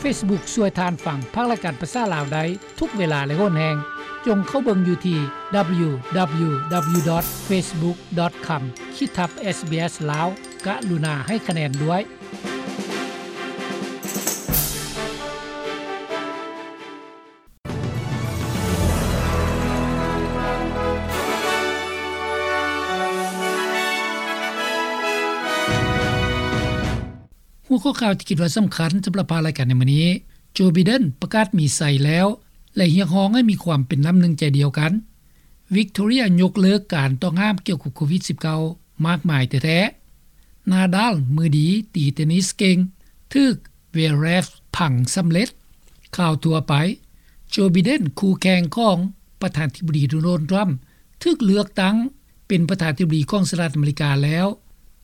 Facebook ຊ່ວຍທ່ານຟັງພາກລາຍການພາສາລາວໄດ້ທຸກເວລາ ແລະ ໂຫນແຮງ. ຈົ່ງເຂົ້າເບິ່ງຢູ່ທີ່ www.facebook.com ຂີດທັບ SBS ລາວ. ກະລຸນາໃຫ້ຄະແນນດ້ວຍ. ຫົວຂໍ້ຂ່າວທີ່ຄິດວ່າສຳຄັນສຳລັບພາກລາຍການໃນມື້ນີ້, ໂຈ ໄບເດັນປະກາດມີໄຊແລ້ວ ແລະ ຮຽກຮ້ອງໃຫ້ມີຄວາມເປັນນ້ຳໜຶ່ງໃຈດຽວກັນ. ວິກໂຕເຣຍຍົກເລີກການຕ້ອງຫ້າມກ່ຽວກັບໂຄວິດສິບເກົ້າ ມາກມາຍແທ້ໆ. ນາດາລ ມືດີຕີເທນນິສເກັ່ງ ຖືກເວເຣຟພັງສຳເລັດ. ຂ່າວທົ່ວໄປ, ໂຈ ໄບເດັນ ຄູ່ແຂ່ງຂອງປະທານາທິບໍດີ ໂດນັລ ທຣຳ ຖືກເລືອກຕັ້ງເປັນປະທານາທິບໍດີຂອງສະຫະລັດອາເມລິກາແລ້ວ.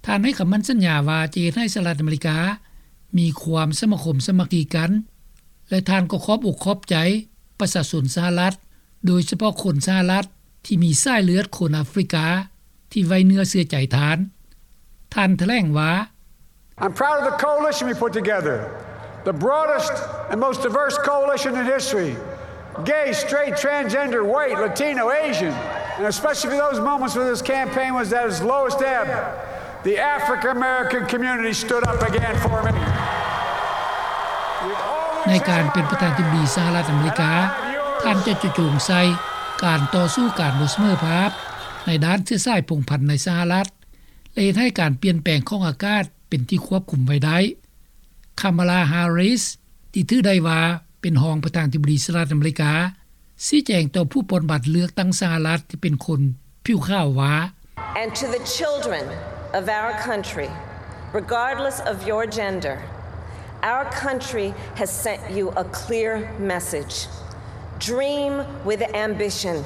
ທ່ານໃຫ້ຄຳໝັ້ນສັນຍາວ່າຈະເຮັດໃຫ້ສະຫະລັດອາເມລິກາມີຄວາມສະມາຄົມສາມັກຄີກັນ ແລະ ທ່ານກໍຂອບອົກຂອບໃຈປະຊາຊົນສະຫະລັດ ໂດຍສະເພາະຄົນສະຫະລັດທີ່ມີສາຍເລືອດຄົນອາຟຣິກາ ທີ່ໄວ້ເນື້ອເຊື່ອໃຈທ່ານ. ທ່ານຖະແຫຼງວ່າ, I'm proud of the coalition we put together, the broadest and most diverse coalition in history. Gay, straight, transgender, white, Latino, Asian, and especially for those moments when this campaign was at its lowest ebb, the African American community stood up again for me. ໃນການເປັນປະທານາທິບໍດີສະຫະລັດອາເມລິກາ, ທ່ານຈະຈະໂຈງໃສ່ການຕໍ່ສູ້ການບໍ່ສະເໝີພາບໃນດ້ານເຊື້ອສາຍພົງພັນໃນສະຫະລັດ ແລະ ເຮັດໃຫ້ການປ່ຽນແປງຂອງອາກາດເປັນທີ່ຄວບຄຸມໄວ້ໄດ້. ຄາມາລາ ແຮຣິສ ທີ່ຖືໄດ້ວ່າເປັນຮອງປະທານາທິບໍດີສະຫະລັດອາເມລິກາ ຊີ້ແຈງຕໍ່ຜູ້ປ່ອນບັດເລືອກຕັ້ງສະຫະລັດທີ່ເປັນຄົນຜິວຂາວວ່າ, And to the children of our country, regardless of your gender, our country has sent you a clear message. Dream with ambition.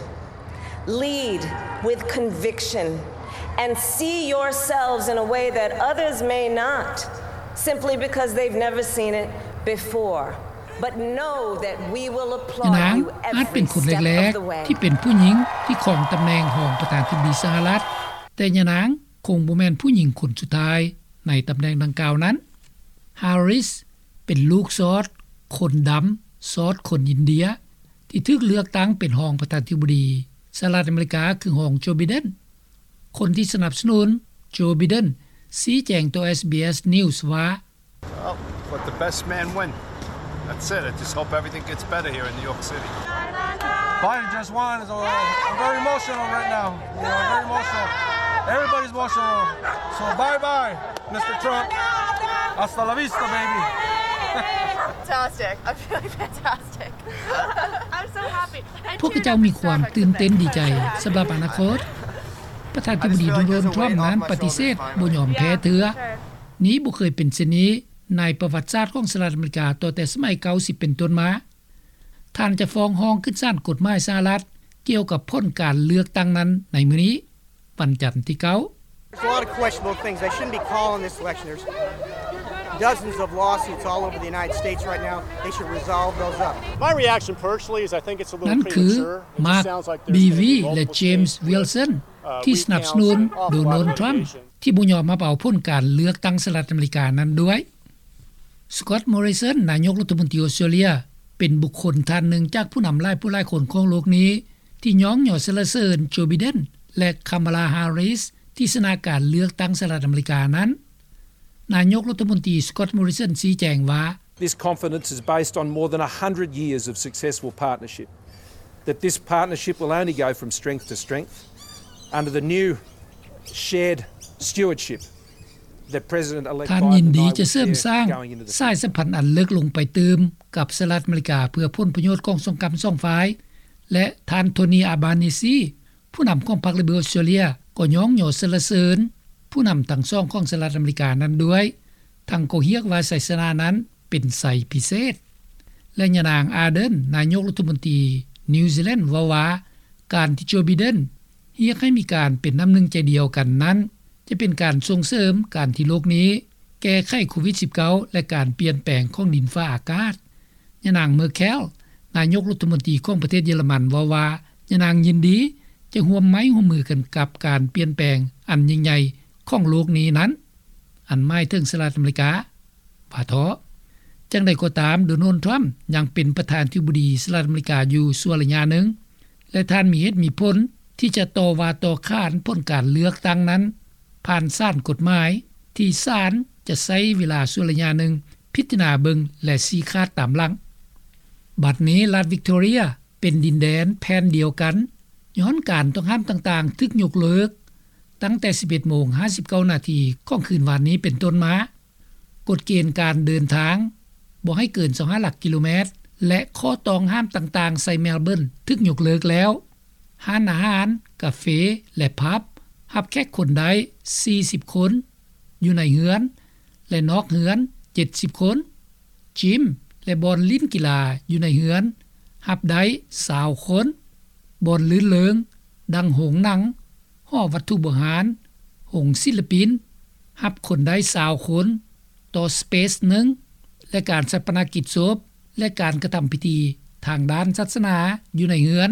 Lead with conviction and see yourselves in a way that others may not, simply because they've never seen it before. But know that we will applaud you every step of the way. ຍານາງອາດເປັນຄົນແລກໆທີ່ເປັນຜູ້ຍິງທີ່ຄອງຕຳແໜ່ງຮອງປະທານາທິບໍດີສະຫະລັດ, ແຕ່ຍານາງຄົງບໍ່ແມ່ນຜູ້ຍິງຄົນສຸດທ້າຍໃນຕຳແໜ່ງດັ່ງກ່າວນັ້ນ. ແຮຣິສ ເປັນລູກຊອດຄົນດຳ ຊອດຄົນອິນເດຍ ທີ່ຖືກເລືອກຕັ້ງເປັນຮອງປະທານາທິບໍດີສະຫະລັດອາເມລິກາ ຄືຮອງໂຈ ໄບເດັນ. ຄົນທີ່ສະໜັບສະໜູນໂຈ ໄບເດັນ ຊີ້ແຈງຕໍ່ SBS News ວ່າ, Well, let the best man win. That's it. I just hope everything gets better here in New York City. Biden just won. I'm very emotional right now. You know, I'm very emotional. Everybody's emotional. So bye-bye. Mister Trump, hasta la vista, baby. Fantastic. I'm feeling fantastic. I'm so happy. ພວກເຂົາເຈົ້າມີຄວາມຕື່ນເຕັ້ນດີໃຈສຳລັບອະນາຄົດ. ປະທານາທິບໍດີໂດນັລ ທຣຳນັ້ນປະຕິເສດບໍ່ຍອມແພ້ເທື່ອ. ນີ້ບໍ່ເຄີຍເປັນເຊັ່ນນີ້ໃນປະຫວັດສາດຂອງສະຫະລັດອາເມລິກາ ຕັ້ງແຕ່ສະໄໝເກົ້າສິບເປັນຕົ້ນມາ. ທ່ານຈະຟ້ອງຮ້ອງຂຶ້ນສານກົດໝາຍສະຫະລັດກ່ຽວກັບຜົນການເລືອກຕັ້ງນັ້ນໃນມື້ນີ້. ວັນຈັນທີເກົ້າ. There's a lot of questionable things. They shouldn't be calling this election. There's dozens of lawsuits all over the United States right now. They should resolve those up. My reaction personally is I think it's a little premature. ນັ້ນຄື ມາກ ບີວີ ແລະ ເຈມສ໌ ວິລສັນ ທີ່ສະໜັບສະໜູນໂດນັລ ທຣຳ ທີ່ບໍ່ຍອມຮັບເອົາຜົນການເລືອກຕັ້ງສະຫະລັດອາເມລິການັ້ນດ້ວຍ. ສະກອດ ມໍຣິສັນ ນາຍົກລັດຖະມົນຕີອົດສະຕຣາເລຍ ເປັນບຸກຄົນທ່ານໜຶ່ງຈາກຜູ້ນຳຫຼາຍຜູ້ຫຼາຍຄົນຂອງໂລກນີ້ ທີ່ຍ້ອງຍໍສັນລະເສີນໂຈ ໄບເດັນ ແລະ ຄາມາລາ ແຮຣິສ ທີ່ຊະນະການເລືອກຕັ້ງສະຫະລັດອາເມລິການັ້ນ. ນາຍົກລັດຖະມົນຕີ ສະກອດ ມໍຣິສັນ ຊີ້ແຈງວ່າ, This confidence is based on more than a hundred years of successful partnership, that this partnership will only go from strength to strength under the new shared stewardship. ທ່ານຍິນດີຈະເສີມສ້າງສາຍສຳພັນອັນເລິກລົງໄປຕື່ມກັບສະຫະລັດອາເມລິກາ ເພື່ອຜົນປະໂຫຍດຂອງສອງກຳສອງຝ່າຍ ແລະ ທ່ານ ໂທນີ ອາບານີຊີ ຜູ້ນຳຂອງພັກ ລິເບີ ອອສເຕຣເລຍ ກໍຍ້ອງຍໍສັນລະເສີນຜູ້ນຳທັງສອງຂອງສະຫະລັດອາເມລິການັ້ນດ້ວຍ, ທັງກໍຮຽກວ່າໄຊຊະນະນັ້ນເປັນໄຊພິເສດ. ແລະ ຍານາງ ອາເດີນ ນາຍົກລັດຖະມົນຕີນິວຊີແລນ ເວົ້າວ່າ ການທີ່ໂຈ ໄບເດັນ ຮຽກໃຫ້ມີການເປັນນ້ຳໜຶ່ງໃຈດຽວກັນນັ້ນ ຈະເປັນການສົ່ງເສີມການທີ່ໂລກນີ້ແກ້ໄຂໂຄວິດສິບເກົ້າ ແລະ ການປ່ຽນແປງຂອງດິນຟ້າອາກາດ. ຍານາງ ເມີແຄລ ນາຍົກລັດຖະມົນຕີຂອງປະເທດເຢຍລະມັນ ເວົ້າວ່າ ຍານາງຍິນດີຈະຮ່ວມໄມ້ຮ່ວມມືກັນກັບການປ່ຽນແປງອັນຍິ່ງໃຫຍ່ຂອງໂລກນີ້ນັ້ນ, ອັນໝາຍເຖິງສະຫະລັດອາເມລິກາ. ວ່າເຖາະ. ເຈ ຢ່າງໃດກໍຕາມ, ໂດນັລ ທຣຳ ຍັງເປັນປະທານາທິບໍດີສະຫະລັດອາເມລິກາຢູ່ຊົ່ວໄລຍະໜຶ່ງ ແລະ ທ່ານມີເຫດມີຜົນທີ່ຈະຕໍ່ວ່າຕໍ່ຂານຜົນການເລືອກຕັ້ງນັ້ນ ຜ່ານສານກົດໝາຍ ທີ່ສານຈະໃຊ້ເວລາຊົ່ວໄລຍະໜຶ່ງພິຈາລະນາເບິ່ງ ແລະ ຊີ້ຂາດຕາມຫຼັງ. ບັດນີ້ລັດວິກຕໍເຣຍເປັນດິນແດນແຜ່ນດຽວກັນ ຍ້ອນການຕ້ອງຫ້າມຕ່າງໆຖືກຍົກເລີກ ຕັ້ງແຕ່ສິບເອັດໂມງຫ້າສິບເກົ້ານາທີຂອງຄືນວານນີ້ເປັນຕົ້ນມາ. ກົດເກນການເດີນທາງບໍ່ໃຫ້ເກີນຊາວຫ້າຫຼັກກິໂລແມັດ ແລະ ຂໍ້ຕ້ອງຫ້າມຕ່າງໆໃສ່ເມລເບີນຖືກຍົກເລີກແລ້ວ. ຮ້ານອາຫານ, ກາເຟ ແລະ ຜັບ ຮັບແຂກຄົນໄດ້ສີ່ສິບຄົນ ຢູ່ໃນເຮືອນ ແລະ ນອກເຮືອນເຈັດສິບຄົນ. ຈິມ ແລະ ບ່ອນຫຼິ້ນກິລາຢູ່ໃນເຮືອນຮັບໄດ້ຊາວຄົນ. ບ່ອນລື່ນເລີງ ດັ່ງໂຮງໜັງ, ຫໍວັດຖຸບູຮານ, ໂຮງສິລະປິນ ຮັບຄົນໄດ້ຊາວຄົນຕໍ່ສະເປສໜຶ່ງ ແລະ ການຊາປະນະກິດສົບ ແລະ ການກະທຳພິທີທາງດ້ານສາສະໜາຢູ່ໃນເຮືອນ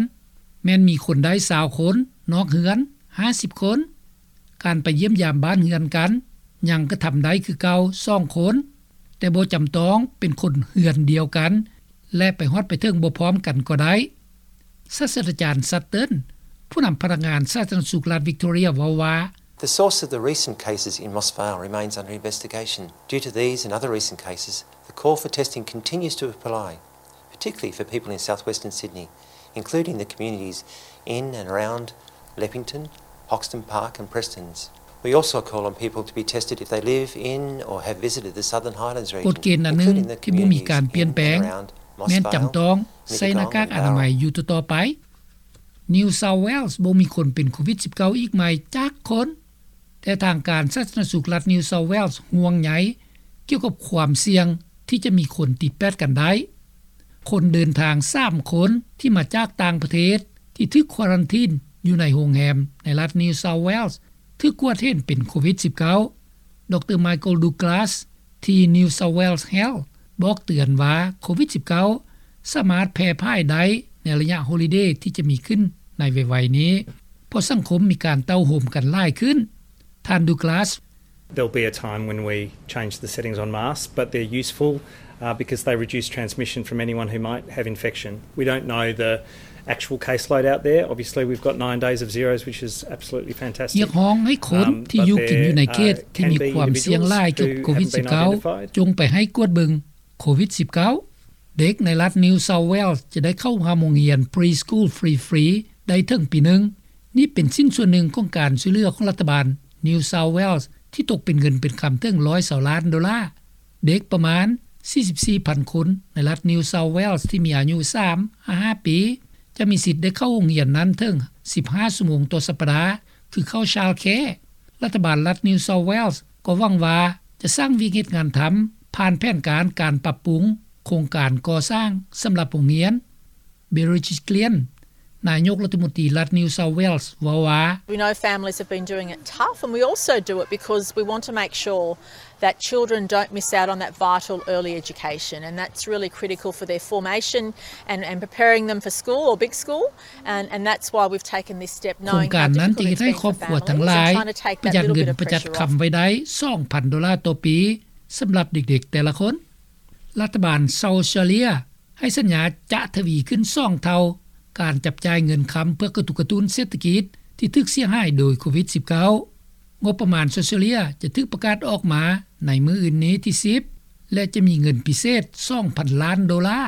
ແມ່ນມີຄົນໄດ້ຊາວຄົນ, ນອກເຮືອນຫ້າສິບຄົນ. ການໄປຢ້ຽມຢາມບ້ານເຮືອນກັນ ຍັງກະທຳໄດ້ຄືເກົ່າສອງຄົນ, ແຕ່ບໍ່ຈຳຕ້ອງເປັນຄົນເຮືອນດຽວກັນ ແລະ ໄປຮອດໄປເຖິງບໍ່ພ້ອມກັນກໍໄດ້. ສາດສະດາຈານ ຊັດເຕີນ ຜູ້ນຳພະນັກງານສາທາລະນະສຸກລັດວິກຕໍເຣຍ ເວົ້າວ່າ The source of the recent cases in Moss Vale remains under investigation. Due to these and other recent cases, the call for testing continues to apply, particularly for people in southwestern Sydney, including the communities in and around Leppington, Hoxton Park and Prestons. We also call on people to be tested if they live in or have visited the Southern Highlands region, ກົດເກນອັນໜຶ່ງທີ່ບໍ່ມີການປ່ຽນແປງ ແມ່ນຈຳຕ້ອງໃສ່ໜ້າກາກອະນາໄມຢູ່ຕໍ່ໆໄປ. New South Wales ບໍ່ມີຄົນເປັນໂຄວິດສິບເກົ້າອີກໃໝ່ຈັກຄົນ, ແຕ່ທາງການສາທາລະນະສຸກລັດ New South Wales ຫ່ວງໃຍກ່ຽວກັບຄວາມສ່ຽງທີ່ຈະມີຄົນຕິດແປດກັນໄດ້. ຄົນເດີນທາງສາມຄົນທີ່ມາຈາກຕ່າງປະເທດ ທີ່ຖືກຄວາຣັນທີນຢູ່ໃນໂຮງແຮມໃນລັດ New South Wales ຖືກກວດເຫັນເປັນໂຄວິດສິບເກົ້າ. ດຣ Michael Douglas ທີ່ New South Wales Health ບອກເຕືອນວ່າໂຄວິດສິບເກົ້າສາມາດແຜ່ພາຍໄດ້ໃນໄລຍະໂຮລິເດທີ່ຈະມີຂຶ້ນໃນໄວໆນີ້ ເພາະສັງຄົມມີການເຕົ້າໂຮມກັນຫຼາຍຂຶ້ນ. ທ່ານ Douglas There'll be a time when we change the settings on masks, but they're useful, uh, because they reduce transmission from anyone who might have infection. We don't know the actual caseload out there. Obviously, we've got nine days of zeros, which is absolutely fantastic. ຮຽກຮ້ອງໃຫ້ຄົນທີ່ຢູ່ກິນຢູ່ໃນເຂດທີ່ມີຄວາມສ່ຽງຫຼາຍກ່ຽວກັບໂຄວິດສິບເກົ້າ ຈົ່ງໄປໃຫ້ກວດເບິ່ງໂຄວິດສິບເກົ້າ. ເດັກໃນລັດ New South Wales ຈະໄດ້ເຂົ້າຮ່ວມໂຮງຮຽນ Preschool Free Free ໄດ້ເຖິງປີໜຶ່ງ. ນີ້ເປັນຊິ້ນສ່ວນໜຶ່ງຂອງການຊ່ວຍເຫຼືອຂອງລັດຖະບານ New South Wales ທີ່ຕົກເປັນເງິນເປັນຄຳເຖິງຮ້ອຍຊາວລ້ານໂດລາ. ເດັກປະມານສີ່ສິບສີ່ພັນຄົນໃນລັດ New South Wales ທີ່ມີອາຍຸສາມຫາຫ້າປີ ຈະມີສິດໄດ້ເຂົ້າໂຮງຮຽນນັ້ນເຖິງສິບຫ້າຊົ່ວໂມງຕໍ່ສັບປະດາ ຄືເຂົ້າ Childcare. ລັດຖະບານລັດ New South Wales ກໍຫວັງວ່າຈະສ້າງວຽກເຮັດງານທຳ ຜ່ານແຜນການການປັບປຸງໂຄງການກໍ່ສ້າງສຳລັບໂຮງຮຽນ. Bridget Glynn ນາຍົກລັດຖະມົນຕີລັດ New South Wales ເວົ້າວ່າ We know families have been doing it tough, and we also do it because we want to make sure that children don't miss out on that vital early education, and that's really critical for their formation and, and preparing them for school or big school, and, and that's why we've taken this step, ໂຄງການນັ້ນຈະເຮັດໃຫ້ຄອບຄົວທັງຫຼາຍປະຢັດເງິນປະຢັດຄຳໄວ້ໄດ້ສອງພັນໂດລາຕໍ່ປີ ສຳລັບເດັກໆແຕ່ລະຄົນ. ລັດຖະບານເຊົາເຊເລັຍ ໃຫ້ສັນຍາຈະທະວີຂຶ້ນສອງເທົ່າການຈັບຈ່າຍເງິນຄຳເພື່ອກະຕຸກກະຕຸ້ນເສດຖະກິດທີ່ຖືກເສຍຫາຍໂດຍໂຄວິດສິບເກົ້າ. ງົບປະມານເຊົາເຊເລັຍຈະຖືກປະກາດອອກມາໃນມື້ອື່ນນີ້ທີສິບ ແລະ ຈະມີເງິນພິເສດສອງພັນລ້ານໂດລາ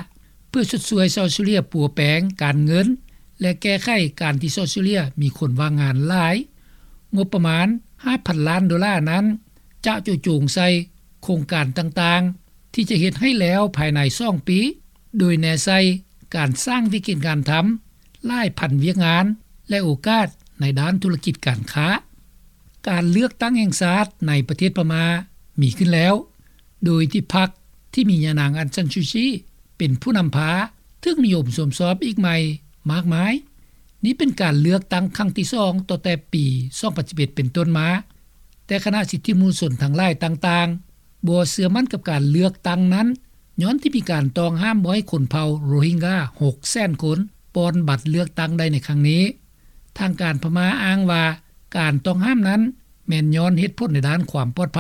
ເພື່ອຊົດຊ່ວຍເຊົາເຊເລັຍປົວແປງການເງິນ ແລະ ແກ້ໄຂການທີ່ເຊົາເຊເລັຍມີຄົນວ່າງງານຫຼາຍ. ງົບປະມານຫ້າພັນລ້ານໂດລານັ້ນ ຈະເຈາະຈົງໃສ່ໂຄງການຕ່າງໆ ທີ່ຈະເຮັດໃຫ້ແລ້ວພາຍໃນສອງປີ ໂດຍແນໃສ່ການສ້າງວິກິດງານທຳຫຼາຍພັນວຽກງານ ແລະ ໂອກາດໃນດ້ານທຸລະກິດການຄ້າ. ການເລືອກຕັ້ງແຫ່ງຊາດໃນປະເທດພະມ້າມີຂຶ້ນແລ້ວ ໂດຍທີ່ພັກທີ່ມີຍານາງ ອັງຊານຊູຈີ ເປັນຜູ້ນຳພາ ຖືກນິຍົມຊົມຊອບອີກໃໝ່ມາກມາຍ. ນີ້ເປັນການເລືອກຕັ້ງຄັ້ງທີສອງ ຕັ້ງແຕ່ປີສອງພັນສິບເອັດເປັນຕົ້ນມາ, ແຕ່ຄະນະສິດທິມະນຸດຊົນທັງຫຼາຍຕ່າງໆ ບໍ່ເຊື່ອໝັ້ນກັບການເລືອກຕັ້ງນັ້ນ ຍ້ອນທີ່ມີການຕ້ອງຫ້າມບໍ່ໃຫ້ຄົນເຜົ່າໂຣຮິງກາຫົກແສນຄົນ ປ່ອນບັດເລືອກຕັ້ງໄດ້ໃນຄັ້ງນີ້. ທາງການພະມ້າອ້າງວ່າ ການຕ້ອງຫ້າມນັ້ນແມ່ນຍ້ອນເຫດຜົນໃນດ້ານຄວາມປອດໄພ.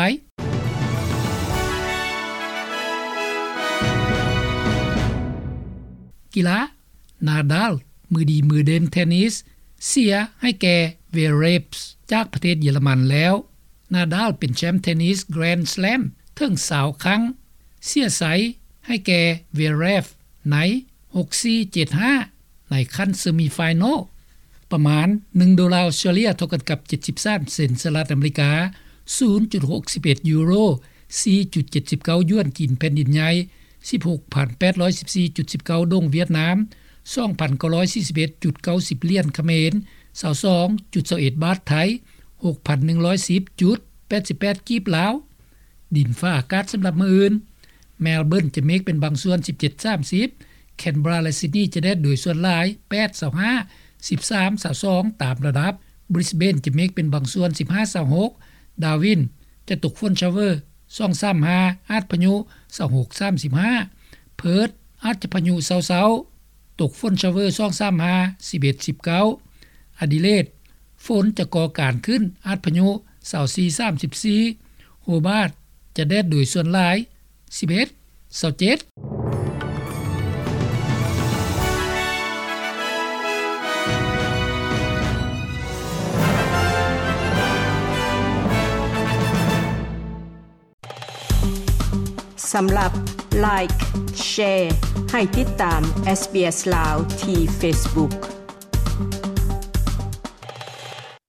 ກິລາ ນາດາລ ມືດີມືເດັ່ນເທນນິສ ເສຍໃຫ້ແກ່ ເວເຣຟ ຈາກປະເທດເຢຍລະມັນແລ້ວ. ນາດາລ ເປັນແຊ້ມເທນນິສ Grand Slam ເຖິງຊາວຄັ້ງ ເສຍໃສໃຫ້ແກ່ ເວເຣຟ ໃນ ຫົກສີ່ ເຈັດຫ້າ ໃນຂັ້ນເຊີມີຟາຍນອລ. ປະມານໜຶ່ງໂດລາອົດສະຕຣາເລັຍ ເທົ່າກັນກັບ ເຈັດສິບສາມເຊັນສະຫະລັດອາເມລິກາ, ສູນຈຸດຫົກສິບເອັດຢູໂຣ, ສີ່ຈຸດເຈັດສິບເກົ້າຢວນຈີນແຜ່ນດິນໃຫຍ່, ສິບຫົກພັນແປດຮ້ອຍສິບສີ່ຈຸດສິບເກົ້າດົງຫວຽດນາມ, ສອງພັນເກົ້າຮ້ອຍສີ່ສິບເອັດຈຸດເກົ້າສິບຫຼຽນຂະເໝນ, ຊາວສອງຈຸດຊາວເອັດບາດໄທ, ຫົກພັນໜຶ່ງຮ້ອຍສິບຈຸດແປດສິບແປດກີບລາວ. ດິນຟ້າອາກາດສຳລັບມື້ອື່ນ: ແມລເບີນຈະເມກເປັນບາງສ່ວນ ສິບເຈັດ ສາມສິບ, ແຄນເບຣາ ແລະ ຊິດນີຈະແດດໂດຍສ່ວນຫຼາຍ ແປດ ຊາວຫ້າ, ສິບສາມ ຊາວສອງ ຕາມລະດັບ, ບຣິສເບນຈະເມກເປັນບາງສ່ວນ ສິບຫ້າ ຊາວຫົກ, ດາວິນຈະຕົກຝົນຊາວເວີ ສອງ ສາມ ຫ້າ ອາດພາຍຸ ຊາວຫົກ ສາມສິບຫ້າ, ເພີດອາດຈະພາຍຸເຊົາໆ ຕົກຝົນຊາວເວີ ສອງ ສາມ ຫ້າ, ສິບເອັດ ສິບເກົ້າ, ອາດີເລດ ຝົນຈະກໍ່ການຂຶ້ນ ອາດພາຍຸ ຊາວສີ່ ສາມສິບສີ່, ໂຮບາດຈະແດດໂດຍສ່ວນຫຼາຍ ສິບເອັດ ຊາວເຈັດ. ສຳລັບ Like Share ໃຫ້ຕິດຕາມ SBS ລາວ ທີ່ Facebook.